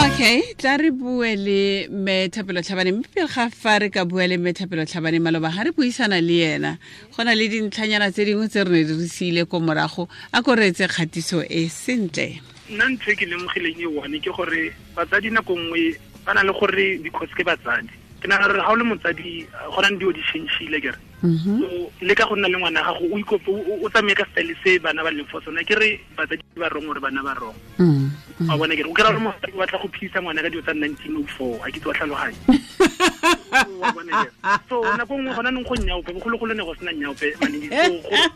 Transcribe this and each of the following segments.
Okay, tla re bue le mme Thapelo Tlhabane, mme pele ga fa re ka bua le mme Thapelo Tlhabane, maloba ga re buisana le ena go na le dintlhanyana tse dingwe tse re ne di re siile ko morago. A ko reetse kgatiso e sentle. Nna ntho e ke lemogileng e one ke gore batsadi nako nngwe ba na le gore because ke batsadi, ke nagana gore ga o le motsadi go na le dilo di change-ile kere. So le ka go nna le ngwana gago o ikope o tsamaye ka style se bana ba leng for sona, ke re batsadi ba wrong gore bana ba wrong. Wa bona kere o kry-a gore motsadi o batla go phedisa ngwana ka dilo tsa 1904, a ke tse wa tlhaloganya. Wa bona kere so nako nngwe gona nong go nyaope, bogologolo ne go sena nyaope, so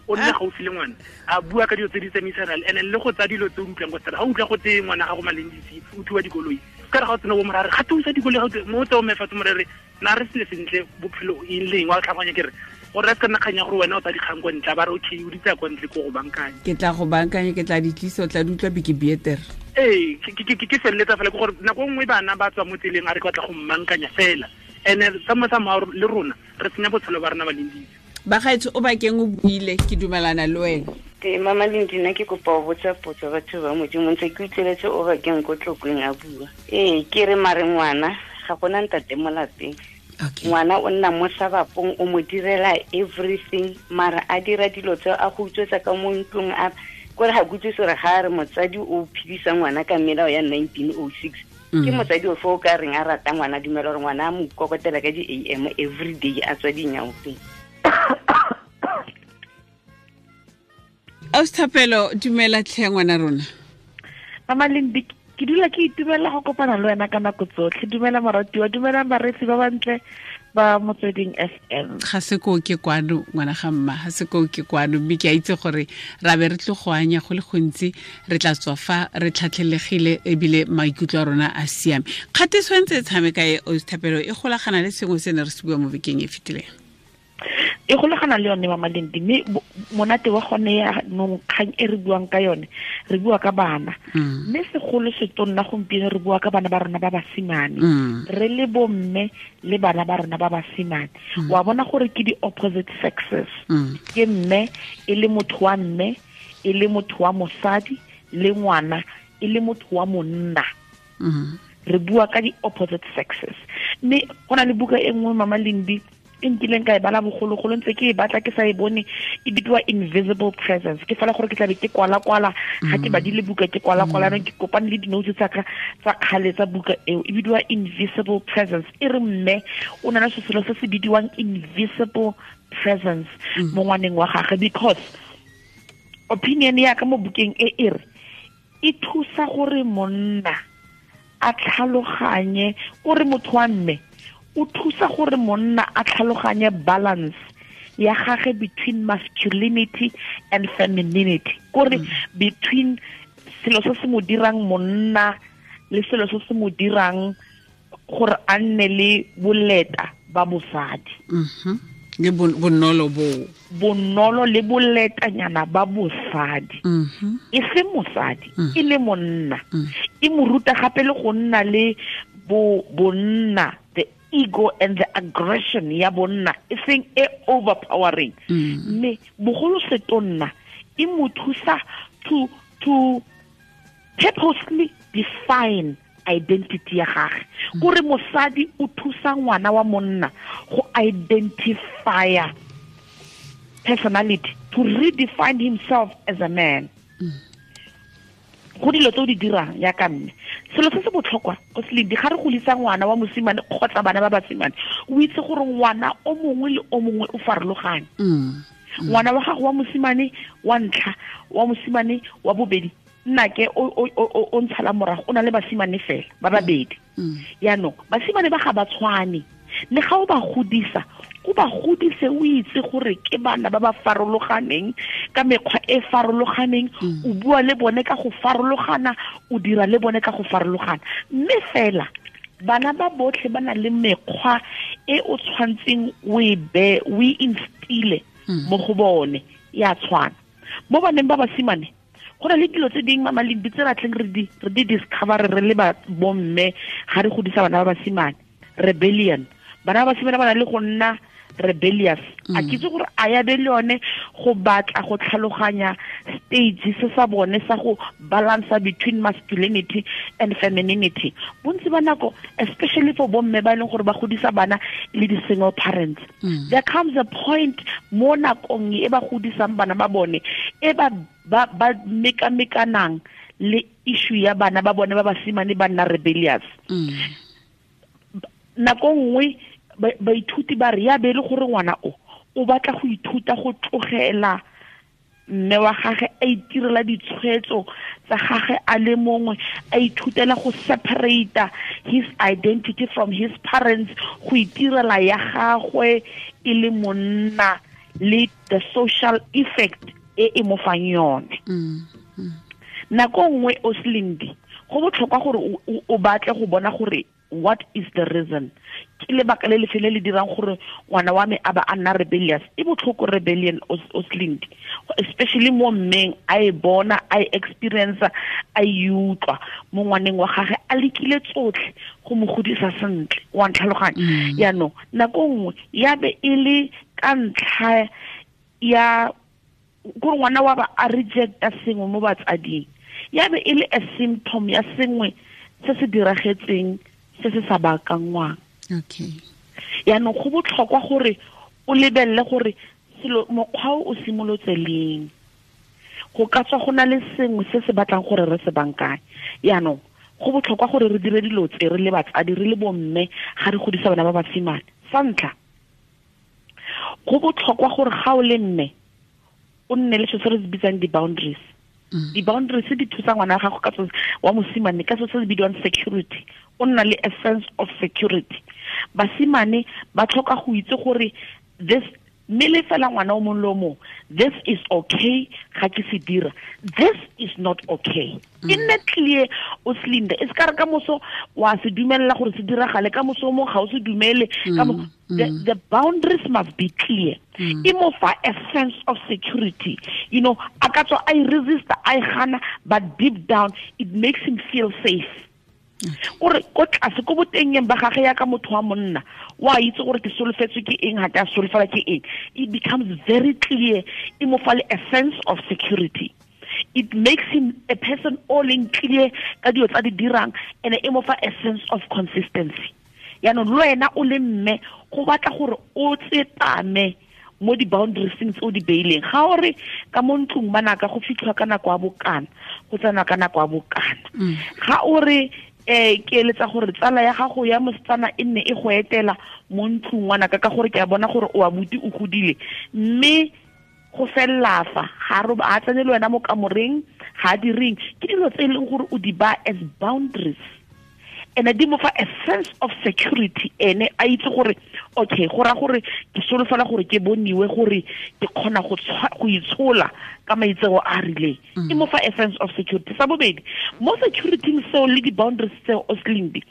o nne gaufi le ngwana a bua ka dilo tse di tsamaisanang and le go tsaya dilo tse o utlwang ko stara. Ga o utlwa go tse ngwana gago Malendisi o thuwa dikoloi, ka re ga o tsena bo morare ga thusa dikoloi, ga mo tse o mefatse morere na re sele sentle bophelo eng leng wa tlhaloganya kere gore re se ka nna kgang ya gore wena o tsa dikgang kwa ntle, ba re okay o di tsaya kwa ntle ko go bankanya. Ke tla go bankanya, ke tla di tlisa, o tla di utlwa beke beter. Ee, ke feleletsa fela ke gore nako nngwe bana ba tswa mo tseleng a re ke batla go mmankanya fela, and sa mo le rona re senya botshelo ba rona ba Lendisi. Bagaetsho o bakeng o buile, ke dumelana le wena. Te mama Lindi, nna ke kopa ho botsa potso batho ba Modimo, ntse ke utlweletse o bakeng ko Tlokweng a bua. Ee, ke re mare ngwana ga gona ntate mo lapeng. Ngwana o nna mo sabapong, o mo direla everything, mara a dira dilo tse a go utswetsa ka mo ntlong, a kore ga ke utlwe gore ga a re motsadi o phedisa ngwana ka melao ya 1906. Ke motsadi o fo o ka reng a rata ngwana, dumela gore ngwana a mo kokotela ka di-A M every day a tswa dinyaopeng. Ausi Thapelo, dumela tlhe ngwana rona. Mama Lindi, ke dula ke itumela go kopana le wena ka nako tsotlhe. Dumela moratiwa, dumela bareetsi ba bantle ba Motsweding FM. Ga se ko ke kwano ngwana ga mma, ga se ko ke kwano, mme ke a itse gore ra be re tlo go anya go le gontsi, re tla tswa fa re tlhatlhelegile ebile maikutlo a rona a siame. Kgatiso e ntse e tshameka e Ausi Thapelo e golagana le sengwe se ne re se bua mo bekeng e fetileng. E golagana le yone Mama Lindi, mme monate wa gone ya nong kgang e re buang ka yone, re bua ka bana. Mme segolo se tonna gompieno re bua ka bana ba rona ba basimane. Re le bomme le bana ba rona ba basimane. Wa bona gore ke di opposite sexes. Ke mme e le motho wa mme, e le motho wa mosadi, le ngwana e le motho wa monna. Re bua ka di opposite sexes. Mme go na le buka e nngwe Mama Lindi e nkileng ka e bala bogologolo, ntse ke e batla ke sa e bone, e bidiwa Invisible Presence. Ke fela gore ke tlabe ke kwala-kwala, ga ke badile buka ke kwala-kwala, ke kopane le di-notes tsa ka tsa kgale tsa buka eo, e bidiwa Invisible Presence. E re mme o na le selo se se bidiwang Invisible Presence mo ngwaneng wa gagwe, because opinion ya ka mo bukeng e e re e thusa gore monna a tlhaloganye, kore motho wa mme o thusa gore monna a tlhaloganye balance ya gagwe between masculinity and femininity, kore between selo se se mo dirang monna le selo se se mo dirang gore a nne le boleta ba bosadi. Le bonolo bo. Bonolo le boletanyana ba bosadi. E se mosadi, e le monna. E mo ruta gape le go nna le bonna, the ego and the aggression ya bonna, e seng e overpowering. Mme bogolo setonna e mo thusa to purposely define identity ya gagwe. Kore mosadi o thusa ngwana wa monna go identify personality, to redefine himself as a man. Go dilo tse o di dirang ya ka mme, selo se se botlhokwa o se ledi, ga re godisa ngwana wa mosimane kgotsa bana ba basimane, o itse gore ngwana o mongwe le o mongwe o farologane. Ngwana wa gago wa mosimane wa ntlha, wa mosimane wa bobedi, nna ke o ntshala morago, o na le basimane fela ba babedi. Yaanong basimane ba ga ba tshwane, le ga o ba godisa, o ba godise o itse gore ke bana ba ba farologaneng ka mekgwa e farologaneng, o bua le bone ka go farologana, o dira le bone ka go farologana. Mme fela bana ba botlhe ba na le mekgwa e o tshwantseng o e be, o e instile mo go bone, ya tshwana. Mo baneng ba basimane go na le dilo tse dingwe Mama Lindi tse batleng re di discover re le ba bomme ga re godisa bana ba basimane. Rebellion, bana ba basimane ba na le go nna rebellious. A ke itse gore a ya be le yone go batla go tlhaloganya stage se sa bone sa go balance between masculinity and femininity. Bontsi ba nako, especially for bomme ba e leng gore ba godisa bana le di single parents, there comes a point mo nakong e ba godisang bana ba bone e ba ba mekamekanang le issue ya bana ba bone ba basimane ba nna rebellious. Nako nngwe baithuti ba re ya be le gore ngwana o batla go ithuta go tlogela mme wa gagwe a itirela ditshwetso tsa gagwe a le mongwe, a ithutela go separate his identity from his parents, go itirela ya gagwe e le monna le the social effect e e mo fang yone. Nako nngwe o Slindi, go botlhokwa gore o batle go bona gore what is the reason, ke lebaka le lefe le le dirang gore ngwana wa me a ba a nna rebellious. E botlhoko rebellion o Slindi, especially mo mmeng a e bona, a e experience, a e utlwa mo ngwaneng wa gagwe, a lekile tsotlhe go mo godisa sentle, wa ntlhaloganya. Yaanong nako nngwe ya be e le ka ntlha ya gore ngwana wa ba a rejecta sengwe mo batsading, ya be e le a symptom ya sengwe se se diragetseng se se sa baakangwang. Okay. Yaanong go botlhokwa gore o lebelele gore selo mokgwa o simolotse leng, go ka tswa go na le sengwe se se batlang gore re se bankanye. Yaanong go botlhokwa gore re dire dilo tse re le batsadi, re le bomme, ga re godisa bana ba basimane. Sa ntlha, go botlhokwa gore ga o le mme o nne le se se re se bitsang di-boundaries. Di-boundaries di thusa ngwana wa gago ka wa mosimane ka se se bidiwang security. O nna le a sense of security. Basimane ba tlhoka go itse gore this, mme le fela ngwana o mongwe le o mongwe, this is okay ga ke se dira, this is not okay. E nne clear o Slinde, e se ka re ka moso wa se dumelela gore se diragale, ka moso o mongwe ga o se dumele. The boundaries must be clear. E mo fa a sense of security. You know, a ka tswa a e resista, a e gana, but deep down it makes him feel safe. Gore ko tlase ko botengeng ba gagwe ya ka motho wa monna, wa itse gore ke solofetswe ke eng, ga ke a solofela ke eng. It becomes very clear. E mo fa le a sense of security. It makes him a person all in clear ka dilo tsa di dirang, and e mo fa a sense of consistency. Yaanong le wena o le mme, go batla gore o tsepame mo di-boundaries tse o di beileng. Ga o re ka mo ntlong banaka go fitlhwa ka nako ya bokana, go tsenwa ka nako ya bokana. Ga o re ke eletsa gore tsala ya gago ya mosetsana e nne e go etela mo ntlong ngwanaka, ka gore ke a bona gore o abuti o godile, mme go felela fa ga a tsene le wena mo kamoreng, ga a direng. Ke dilo tse e leng gore o di ba as boundaries, and di mo fa a sense of security. Ene a itse gore okay, go ra gore ke solofela gore ke boniwe gore ke kgona go itshola ka maitseo a rileng. E mo fa a sense of security. Sa bobedi, mo security seo le di-boundaries tseo o Slindi,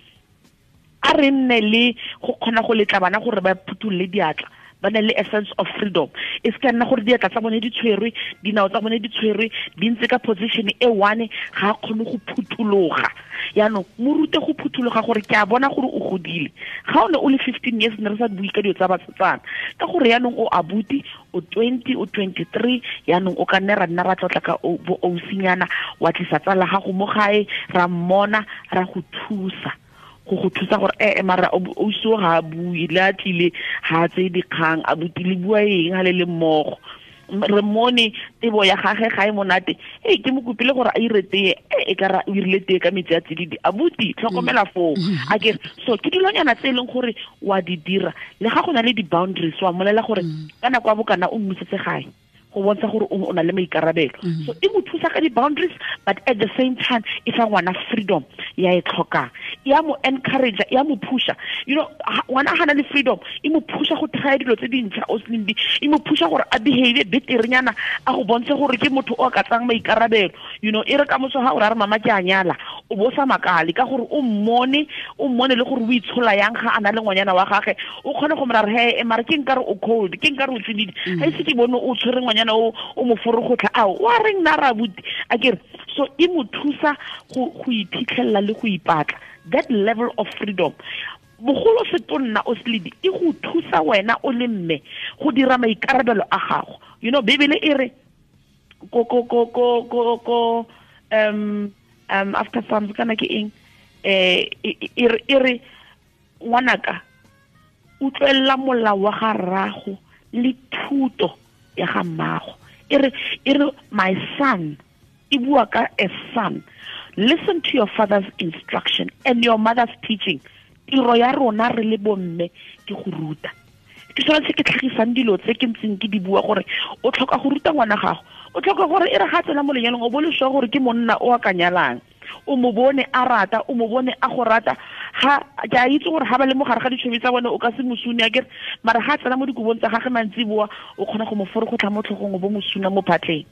a re nne le go kgona go letla bana gore ba phuthulle diatla, ba na le a sense of freedom. E se ka nna gore diatla tsa bone di tshwerwe, dinao tsa bone di tshwerwe, di ntse ka position e one, ga a kgone go phuthologa. Yaanong mo rute go phuthologa gore ke a bona gore o godile. Ga o ne o le 15 years ne re sa bue ka dilo tsa basetsana, ka gore yaanong o abuti, o 20, o 23, yaanong o ka nne ra nna ra tlotla ka bo ousinyana, wa tlisa tsala gago mo gae, ra mmona, ra go thusa. Go thusa gore mara o so ga a bue, le a tlile ga a tseye dikgang, a butile bua eng ga le le mmogo. Re mmone tebo ya gagwe ga e monate, ke mo kopile gore a ire tee, e ka ra o irile tee ka metsi a tsididi, abuti tlhokomela foo. A ke so ke dilonyana tse e leng gore wa di dira, le ga go na le di-boundaries, wa mmolela gore ka nako ya bokana o mmusetse gae, go bontsha gore o na le maikarabelo. So e mo thusa ka di-boundaries, but at the same time e fa ngwana freedom ya e tlhokang, ya mo encourage, ya mo pusha. You know, ngwana ga na le freedom, e mo pusha go try dilo tse dintšha o Slindi, e mo pusha gore a behave beterenyana, a go bontshe gore ke motho o ka tsang maikarabelo. You know, e re ka moso ga o ra re mama ke a nyala, o bo sa makale ka gore o mmone le gore o itshola yang ga a na le ngwanyana wa gagwe, o kgone go mo ra re he mara ke nkare o cold, ke nkare o tsididi, ga ise ke bone o tshwere ngwanyana o mo forogotlha, ao wa reng nna ra abuti. A ke re so e mo thusa go iphitlhelela le go ipatla, that level of freedom. Bogolo setonna o seledi e go thusa wena o le mme go dira maikarabelo a gago. You know, Bibele e re ko ko ko ko ko ko after Psalms kana ke eng, e re ngwanaka utlwella molao wa ga rrago le thuto ya ga mmago. E re my son, e bua ka a son, listen to your father's instruction and your mother's teaching. Tiro ya rona re le bomme ke go ruta. Ke sone se ke tlhagisang dilo tse ke ntseng ke di bua gore o tlhoka go ruta ngwana gago, o tlhoka gore e re ga tsena mo lenyalong o bo le sure gore ke monna o a ka nyalang, o mo bone a rata, o mo bone a go rata. Ga ke a itse gore ga ba le mo gare ga ditšhomi tsa bone o ka se mosune akere, mara ga tsena mo dikobong tsa gagwe mantsiboa o kgona go mo forogotlha mo tlhogong o bo mosuna mo phatleng.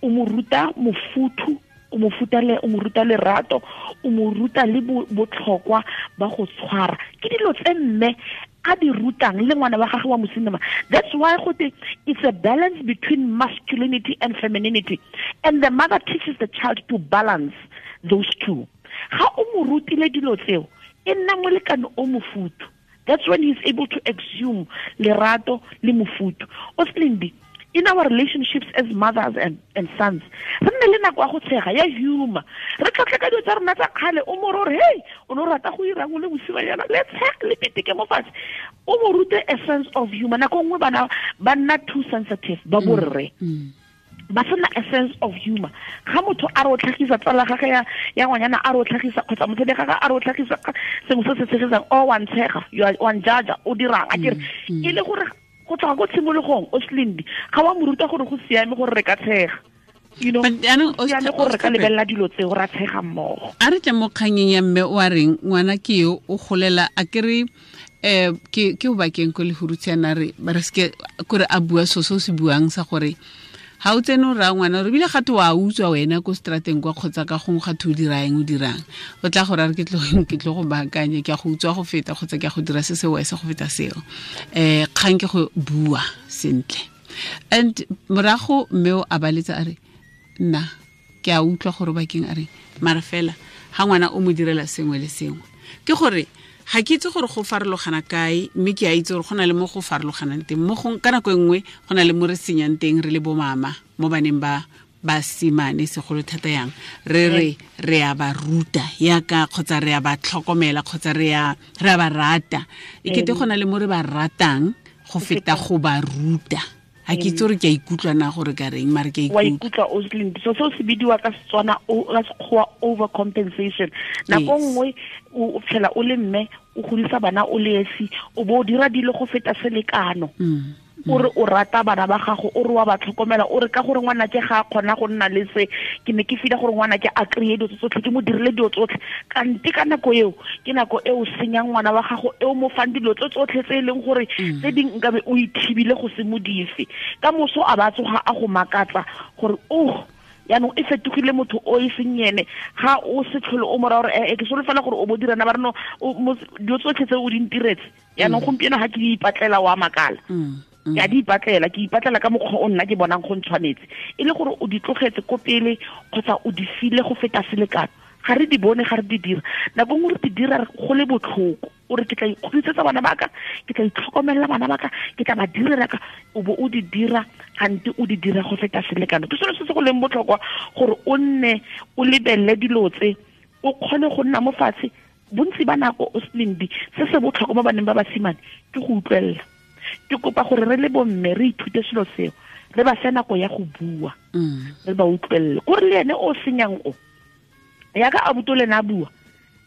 O mo ruta mofuthu, o mo ruta lerato, o mo ruta le botlhokwa ba go tshwara. Ke dilo tse mme a di rutang le ngwana wa gagwe wa mosimane. That's why gote it's a balance between masculinity and femininity, and the mother teaches the child to balance those two. Ga o mo rutile dilo tseo, e nna molekane o mofuthu. That's when he's able to exhume lerato le mofuthu. Oslindi, in our relationships as mothers and sons, re nne le nako ya go tshega, ya humor. Re tlhotlhe ka dilo tsa rona tsa kgale, o mo re hey, o no rata go irang o le mosimanyana, le tshege le peteke mo fatshe. O mo rute a sense of humor. Nako nngwe bana ba nna too sensitive, ba borre. Ba sena a sense of humor. Ga motho a re o tlhagisa tsala gagwe ya ngwanyana a re o tlhagisa, kgotsa mosadi gagwe a re o tlhagisa sengwe se se tshegisang, o wa ntshega, wa njaja, o dirang akere. E le gore go tloga ko tshimologong o Slindi ga wa mo ruta gore go siame gore re ka tshega, you know, siame gore re ka lebelela dilo tseo ra tshega mmogo. A re tle mo kganyeng ya mme o a reng ngwana ke yo o golela a kere ke o bakeng ko Lehurutshe re ba re seke kore a bua so se se buang sa gore ha o tsene o raya ngwana re bile gate wa utswa wena ko strateng kwa kgotsa ka gongwe gate o dira eng o dirang, o tla go raya re ke tlo go baakanya, ke a go utswa go feta kgotsa ke a go dira se se wese go feta seo. Kgang ke go bua sentle. And morago mme o a baletsa a re nna ke a utlwa gore bakeng a re mara fela ga ngwana o mo direla sengwe le sengwe, ke gore ga ke itse gore go farologana kae, mme ke a itse gore go na le mo go farologanang teng. Mo go ka nako e nngwe go na le mo re senyang teng re le bo mama mo baneng ba basimane segolo thata yang re re a ba ruta yaka kgotsa re a ba tlhokomela kgotsa re a ba rata, e kete go na le mo re ba ratang go feta go ba ruta. Ha ke itse gore ke a ikutlwa na gore ka reng, mare ke a ikutlwa. Wa ikutlwa Oslin. So seo se bidiwa ka Setswana ka Sekgowa overcompensation. Nako nngwe o phela o le mme o godisa bana o le esi, o bo o dira dilo go feta selekano. O re o rata bana ba gago, o re wa ba tlhokomela, o re ka gore ngwana ke ga a kgona go nna le se, ke ne ke fila gore ngwana ke a kry-e dilo tsotlhe, ke mo dirile dilo tsotlhe. Kante ka nako eo ke nako e o senyang ngwana wa gago, e o mo fang dilo tse tsotlhe tse e leng gore tse ding nkabe o ithibile go se mo dife. Ka moso a ba tsoga a go makatsa gore oh yaanong e fetogile motho o e seng ene, ga o se tlhole o mora gore ke solofela gore o bo dirana ba reno dilo tsotlhe tse o di ntiretse. Yaanong gompieno ga ke di ipatlela wa makala. Ke a di ipatlela, ke ipatlela ka mokgwa o nna ke bonang go ntshwanetse. E le gore o di tlogetse ko pele kgotsa o di file go feta selekano. Ga re di bone, ga re di dira. Nako nngwe re di dira go le botlhoko. O re ke tla ikgodisetsa bana ba ka, ke tla itlhokomelela bana ba ka, ke tla ba direla ka, o bo o di dira gante o di dira go feta selekano. Ke selo se se go leng botlhokwa gore o nne o lebelele dilo tse, o kgone go nna mo fatshe. Bontsi ba nako o Slindi, se se botlhokwa mo baneng ba basimane ke go utlwelela. Ke kopa gore re le bomme re ithute selo seo, re ba fe nako ya go bua, re ba utlwelele. Kore le ene o senyang o yaka abuto le na bua,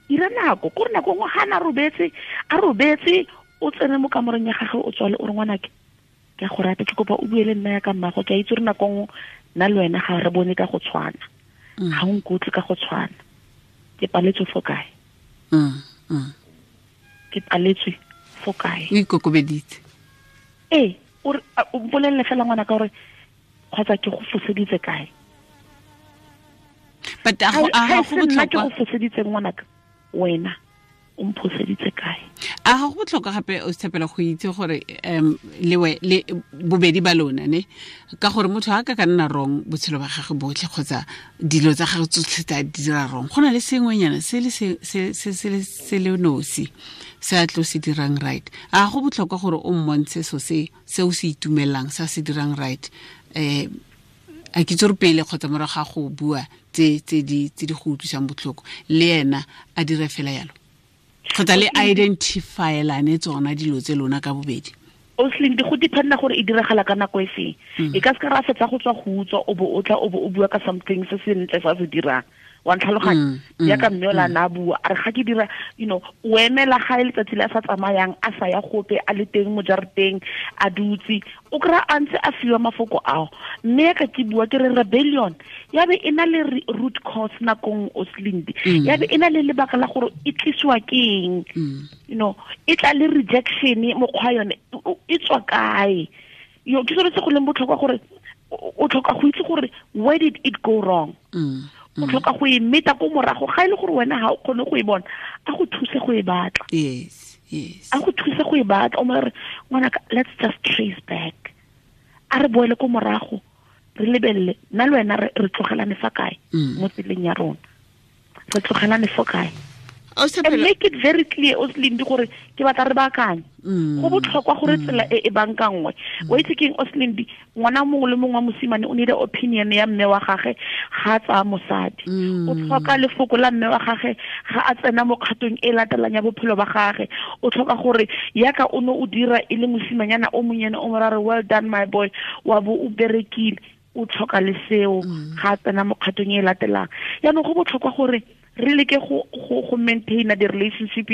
ira nako kore nako nngwe ga na robetse, a robetse, o tsene mo kamoreng ya gagwe o tswale o re ngwanake ke a go rata, ke kopa o bue le nna ya ka mmago, ke a itse gore nako nngwe nna le wena ga re bone ka go tshwana, ga o nkutlwe ka go tshwana, ke paletswe fo kae? Ke paletswe fo kae? O ikokobeditse. Ee, o mpolelele fela ngwana ka gore kgotsa ke go foseditse kae. But a go botlhokwa ke go foseditse ngwanaka wena O mphoseditse kae? A ga go botlhokwa gape o Thapelo go itse gore lewe le bobedi ba lona ne, ka gore motho a ka nna wrong botshelo ba gagwe botlhe kgotsa dilo tsa gagwe tsotlhe tsa dira wrong, go na le sengwenyana se le se le nosi se a tlo se dirang right. A go botlhokwa gore o mmontshe so se o se itumelang sa se dirang right, a ke tsore pele kgotsa morago ga go bua tse di go utlwisang botlhoko, le ena a dire fela yalo, kgotsa le identify-elane tsona dilo tse lona ka bobedi. Oslin, go dependa gore e diragala ka nako e feng. E ka se ka ra fetsa go tswa go utswa o bo o tla o bo o bua ka something se sentle sa se dirang. Wa ntlhaloganya? Jaaka mme o la na bua, a re ga ke dira, you know, o emela ga e letsatsi le a sa tsamayang, a sa ya gope, a le teng mo jarateng, a dutse, o kry-a a ntse a fiwa mafoko ao. Mme ka ke bua ke re rebellion ya be e na le root cause nakong Oslindi, ya be e na le lebaka la gore e tlisiwa ke eng, you know, e tla le rejection mokgwa yone e tswa kae. Yo ke sone se go leng botlhokwa gore o tlhoka go itse gore where did it go wrong. O tlhoka go e meta ko morago, ga e le gore wena ga o kgone go e bona, a go thuse go e batla. Yes, yes. A go thuse go e batla, o mo re ngwanaka, let's just trace back. A re boele ko morago, re lebelele nna le wena re tlogelane fa kae mo tseleng ya rona, re tlogelane fo kae. And make it very clear, Oslindi, gore ke batla re baakanye. Go botlhokwa gore tsela e e bankangwe. Wa itse keng, Oslindi, ngwana mongwe le mongwe wa mosimane o need opinion ya mme wa gagwe ga a tsaya mosadi. O tlhoka lefoko la mme wa gagwe ga a tsena mo kgatong e latelang ya bophelo ba gagwe. O tlhoka gore yaka o ne o dira e le mosimanyana o monyane o mo ra re well done my boy, wa bo o berekile. O tlhoka le seo ga a tsena mo kgatong e latelang. Jaanong go botlhokwa gore re leke go maintain the relationship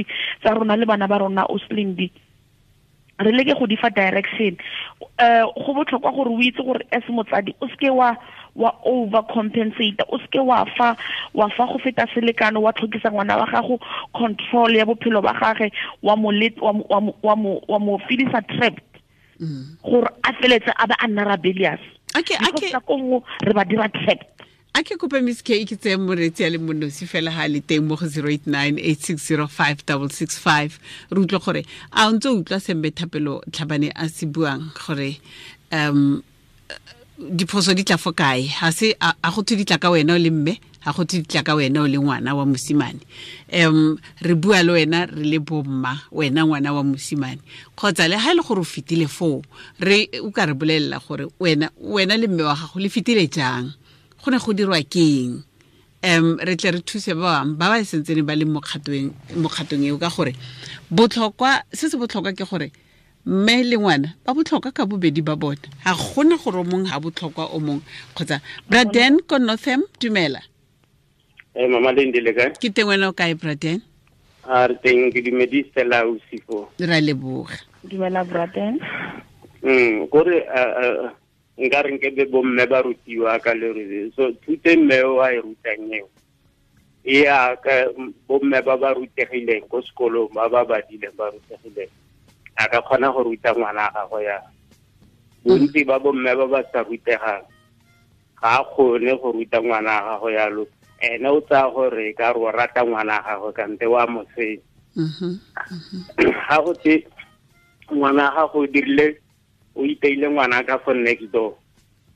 tsa rona le bana ba rona, Oslindi. Re leke go di fa direction. Go botlhokwa gore o itse gore as motsadi o seke wa overcompensate, o seke wa fa go feta selekano, wa tlhokisa ngwana wa gago control ya bophelo ba gagwe, wa mo feelisa trapped gore a feletse a ba a nna rebellious. Okay. Nako nngwe re ba dira trapped. A ke kope Miss K ke tseye moreetsi a le monosi fela ha le teng mo go 0898605665, re utlwe gore a o ntse o utlwa se mme Thapelo Tlhabane a se buang gore diphoso di tla fo kae. Ga se a go thwe di tla ka wena o le mme, ga go thwe di tla ka wena o le ngwana wa mosimane. Re bua le wena re le bomma, wena ngwana wa mosimane, kgotsa le ha e le gore o fetile foo, re o ka re bolelela gore wena le mme wa gago le fetile jang, go ne go dirwa keng. Re tle re thuse ba bangwe ba ba sentsene ba le mo kgatong eo, ka gore botlhokwa se se botlhokwa ke gore mme le ngwana ba botlhokwa ka bobedi ba bona, ga gona gore o mongwe ga botlhokwa o mongwe. Kgotsa Braden ko Northam, dumela. Mama Lindi, le kae? Ke teng, wena o kae Braden? A re teng, ke dumedise la Usifo. Ra leboga. Dumela Braden. Kore nka re nke be bomme ba rutiwa ka leruri. So thute mme o a e rutang eo, e ya ka bomme ba ba rutegileng ko sekolong, ba ba badileng ba rutegileng, a ka kgona go ruta ngwana gagwe ya. Bontsi ba bomme ba ba sa rutegang ga a kgone go ruta ngwana gagwe yalo. Ene o tsaya gore ka re o rata ngwana gagwe kante wa mo senya. Ga go te ngwana gago o dirile, o iteile ngwana ka fo next door,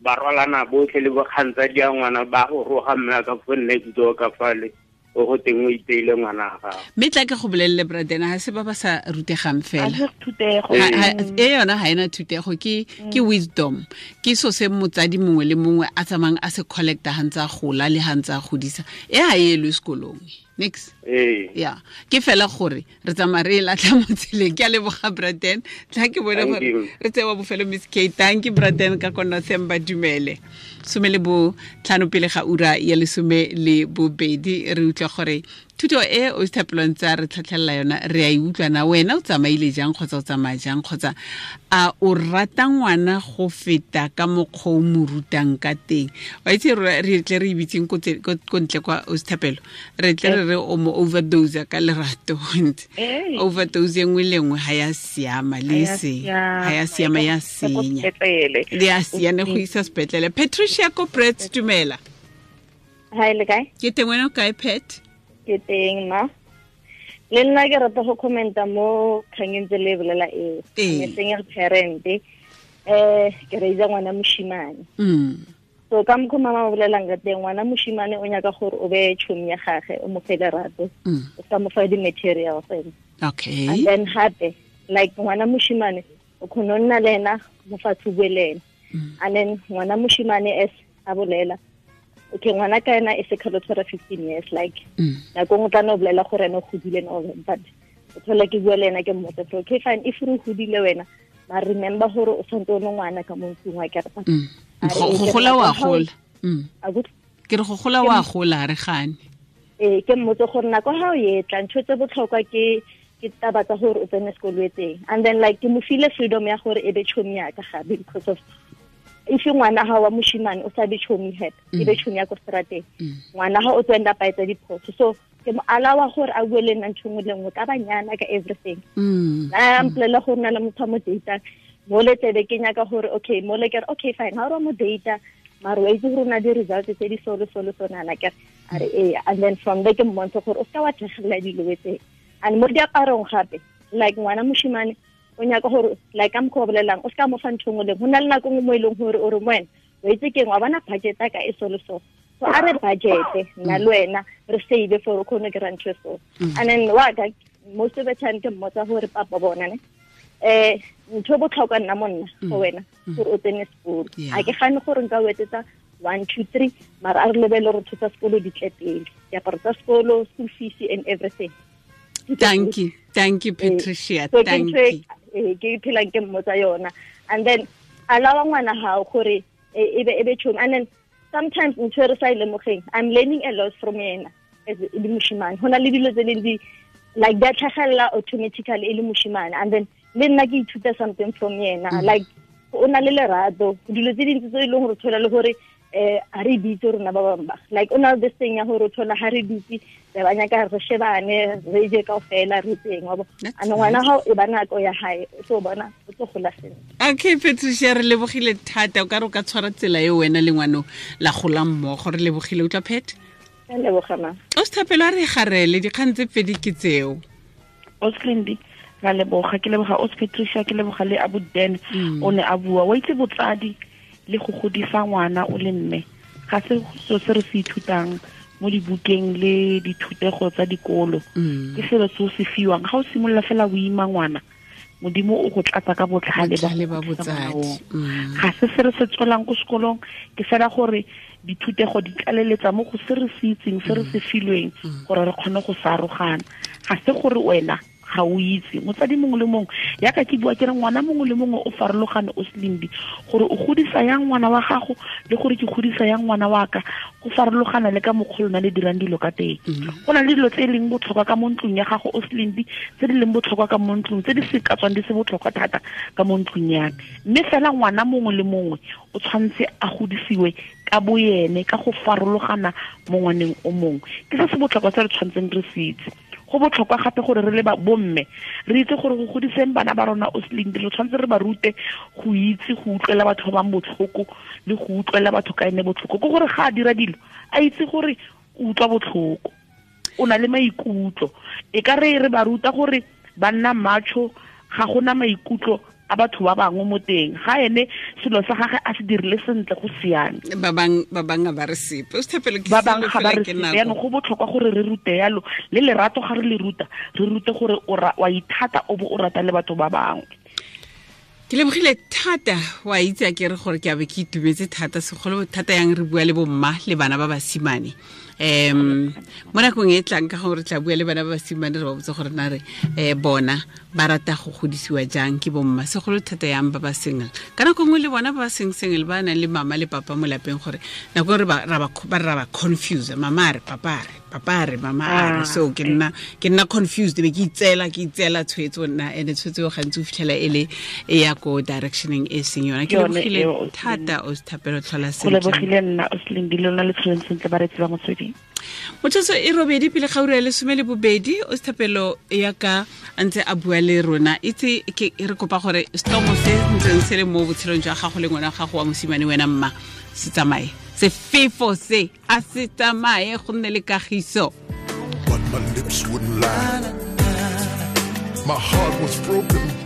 ba rwalana botlhe le bokgantsadi ya ngwana ba go roga mme ka fo next door ka fale, o go teng o iteile ngwana gago. Mme tla ke go bolelele Braden, ga se ba ba sa rutegang fela. E yona ga ena thutego, ke wisdom, ke so se motsadi mongwe le mongwe a tsamayang a se collecta ga ntse a gola le ga ntse a godisa. E ga e elwe sekolong. Nix. Yeah. Ke fela gore re tsamaya re e latlha mo tseleng. Ke a leboga Braden. Tla ke bone gore re tsewa bofelo Miss K. Thank you Braden ka kona Themba dumele. 15 pele ga ura ya 12 re utlwa gore thuto e o Thapelo ntse a re tlhatlhelela yona re a e utlwa na wena o tsamaile jang kgotsa o tsamaya jang kgotsa a o rata ngwana go feta ka mokgwa o mo rutang ka teng. Wa itse re tle re ibitseng ko ntle kwa o Thapelo, re tle re re o mo overdose ka lerato. Overdose e nngwe le nngwe ga ya siama le se ga ya siama ya senya le ya siane go isa sepetlele. Patricia ko Brits, dumela. Hi, le kae? Ke teng, wena o kae Pat? Ke teng ma. Le nna ke rata go commenta mo kgangeng tse le bolela eo. Ke single parent. Ke raisa ngwana moshimane. So ka mokgwa mama o bolelang ka teng, ngwana moshimane o nyaka gore o be tšhomi ya gage, o mo fe lerato, o sa mo fa di-materials. Okay. And then hape, like ngwana moshimane o kgona nna le ena mo fatshe bue le ena. And then ngwana moshimane as a bolela, okay, ngwana ka ena e se kgalo tshwara 15 years, like nako nngwe tla no bolela gore ene o godile and all that, but o thola ke bua le ena ke mmotsa, okay fine, if re godile wena, ma remember gore o tshwanetse o le ngwana ka mo ntlong wa kereta. Go gola wa gola. Ke re go gola wa gola re gane. Ke mmotse gore nako ha o etla ntho tse botlhokwa ke taba tsa gore o tsene sekolo e teng. And then like ke mo file freedom ya gore e be tšhomi ya ka gape, because of if ngwana ha wa moshimane o sa be tšhomi hape, e be tšhomi ya ko strateng, ngwana ha o tswenda pa etsa diphoso. So ke mo alawa gore a bue le nna ntho nngwe le nngwe ka banyana ka everything. A mpolelela gore na le motho a mo data, mo le tsebe ke nyaka gore okay, mo le ke re okay fine, ha o mo data mara wa itse gore o na di-results tse di so le so le so nana ke a re ee. And then from there ke mmontshe gore o seka wa tlhagelela dilo tse. And mo diaparong gape, like ngwana moshimane o nyaka gore like ka mokgwa o bolelang, o seka mo fa ntho nngwe le nngwe. Go na le nako nngwe mo e leng gore o re mo wena o itse keng, wa bona budget ya ka e so le so, so a re budget nna le wena re save for o kgone kry-a ntho e so. And then wa ka most of the time ke mmotsa gore papa bona ne ntho e botlhokwa nna monna go wena gore o tsene sekolo. A ke gane gore nka o etsetsa 1 2 3, mara a re lebele gore ntho tsa sekolo di tle pele, diaparo tsa sekolo, school fees and everything. Thank you, thank you Patricia, thank you. Ke phelang ke mmotsa yona. And then alawa ngwana hao gore e be tšhomi. And then sometimes ntho e re sa e lemogeng, I'm learning a lot from yena as e le moshimane. Ho na le dilo tse leng di like di a tlhagelela automatically e le moshimane, and then le nna ke ithuta something from yena. Like o na le lerato, dilo tse dintsi tse e leng gore thola le gore a re bitse rona ba bangwe ba, like o na le this thing ya gore o thola ha re dutse re ba nyaka re shebane re je kaofela re tseng wa bo. And ngwana hao e ba nako ya hae, o tlo bona o tlo gola sentle. Okay Patricia, re lebogile thata, o ka re o ka tshwara tsela e wena le ngwano la gola mmogo. Re lebogile, utlwa Pet? Ke leboga ma. O sethapelo a re garele dikgang tse pedi ke tseo. Ostlindi ra leboga, ke leboga Os Patricia, ke leboga le Abu Dan o ne a bua. Wa itse botsadi le go godisa ngwana o le mme ga se so se re se ithutang mo dibukeng le dithutego tsa dikolo. Ke selo se o se fiwang ga o simolola fela o ima ngwana, Modimo o go tlatsa ka botlhale ba botsadi. Ga se se re se tswelang ko sekolong, ke fela gore dithutego di tlaleletsa mo go se re se itseng, se re se filweng gore re kgone go sarogana. Ga se gore wena ga o itse motsadi mongwe le mongwe, yaka ke bua ke re ngwana mongwe le mongwe o farologane o selimbi, gore o godisa yang ngwana wa gago le gore ke godisa yang ngwana wa ka go farologana le ka mokgwa lona le dirang dilo ka teng. Go na le dilo tse e leng botlhokwa ka mo ntlong ya gago o selimbi, tse di leng botlhokwa ka mo ntlong, tse di se ka tswang di se botlhokwa thata ka mo ntlong ya me. Mme fela ngwana mongwe le mongwe o tshwanetse a godisiwe ka boyene ka go farologana mo ngwaneng o mongwe. Ke se se botlhokwa se re tshwanetseng re se itse. Go botlhokwa gape gore re le ba bomme re itse gore go godiseng bana ba rona o seleng, re tshwanetse re ba rute go itse go utlwela batho ba bangwe botlhoko le go utlwela batho ka ene botlhoko. Ke gore ga a dira dilo a itse gore o utlwa botlhoko, o na le maikutlo. E ka re re ba ruta gore ba nna macho, ga gona maikutlo a batho ba bangwe mo teng, ga ene selo sa gagwe a se dirile sentle go siame. Ba bang ba re sepe, o sethapelo ke ba bang ga ba re sepe. Yaanong go botlhokwa gore re rute yalo, le lerato ga re le ruta, re rute gore wa ithata o bo o rata le batho ba bangwe. Ke lebogile thata, wa itse a ke re gore ke a be ke itumetse thata, segolo thata yang re bua le bomma le bana ba basimane. Mo nakong e tlang ka gore tla bua le bana ba basimane, re ba botse gore na re bona ba rata go godisiwa jang ke bomma, segolo thata yang ba ba single. Ka nako nngwe le bona ba ba seng single ba nang le mama le papa mo lapeng, gore nako re ba ra ba confuse, mama a re papa a re, papa a re mama a re. So ke nna confused, be ke itseela tshwetso nna, ene tshwetso eo gantsi o fitlhela e le e ya ko directioneng e seng yona. Ke lebogile thata o sethapelo, tlhola sentle. Go lebogile nna o seleng le lona le tlholeng sentle ba retsi ba motsweding. Motsotso e robedi pele ga ura ya 12, o sethapelo ya ka a ntse a bua le rona. Itse ke re kopa gore stomo se ntseng se le mo botshelong jwa gago le ngwana gago wa mosimane wena mma se tsamaye, sefefo se a se tsamaye, go nne le kagiso. But my lips wouldn't lie. My heart was broken.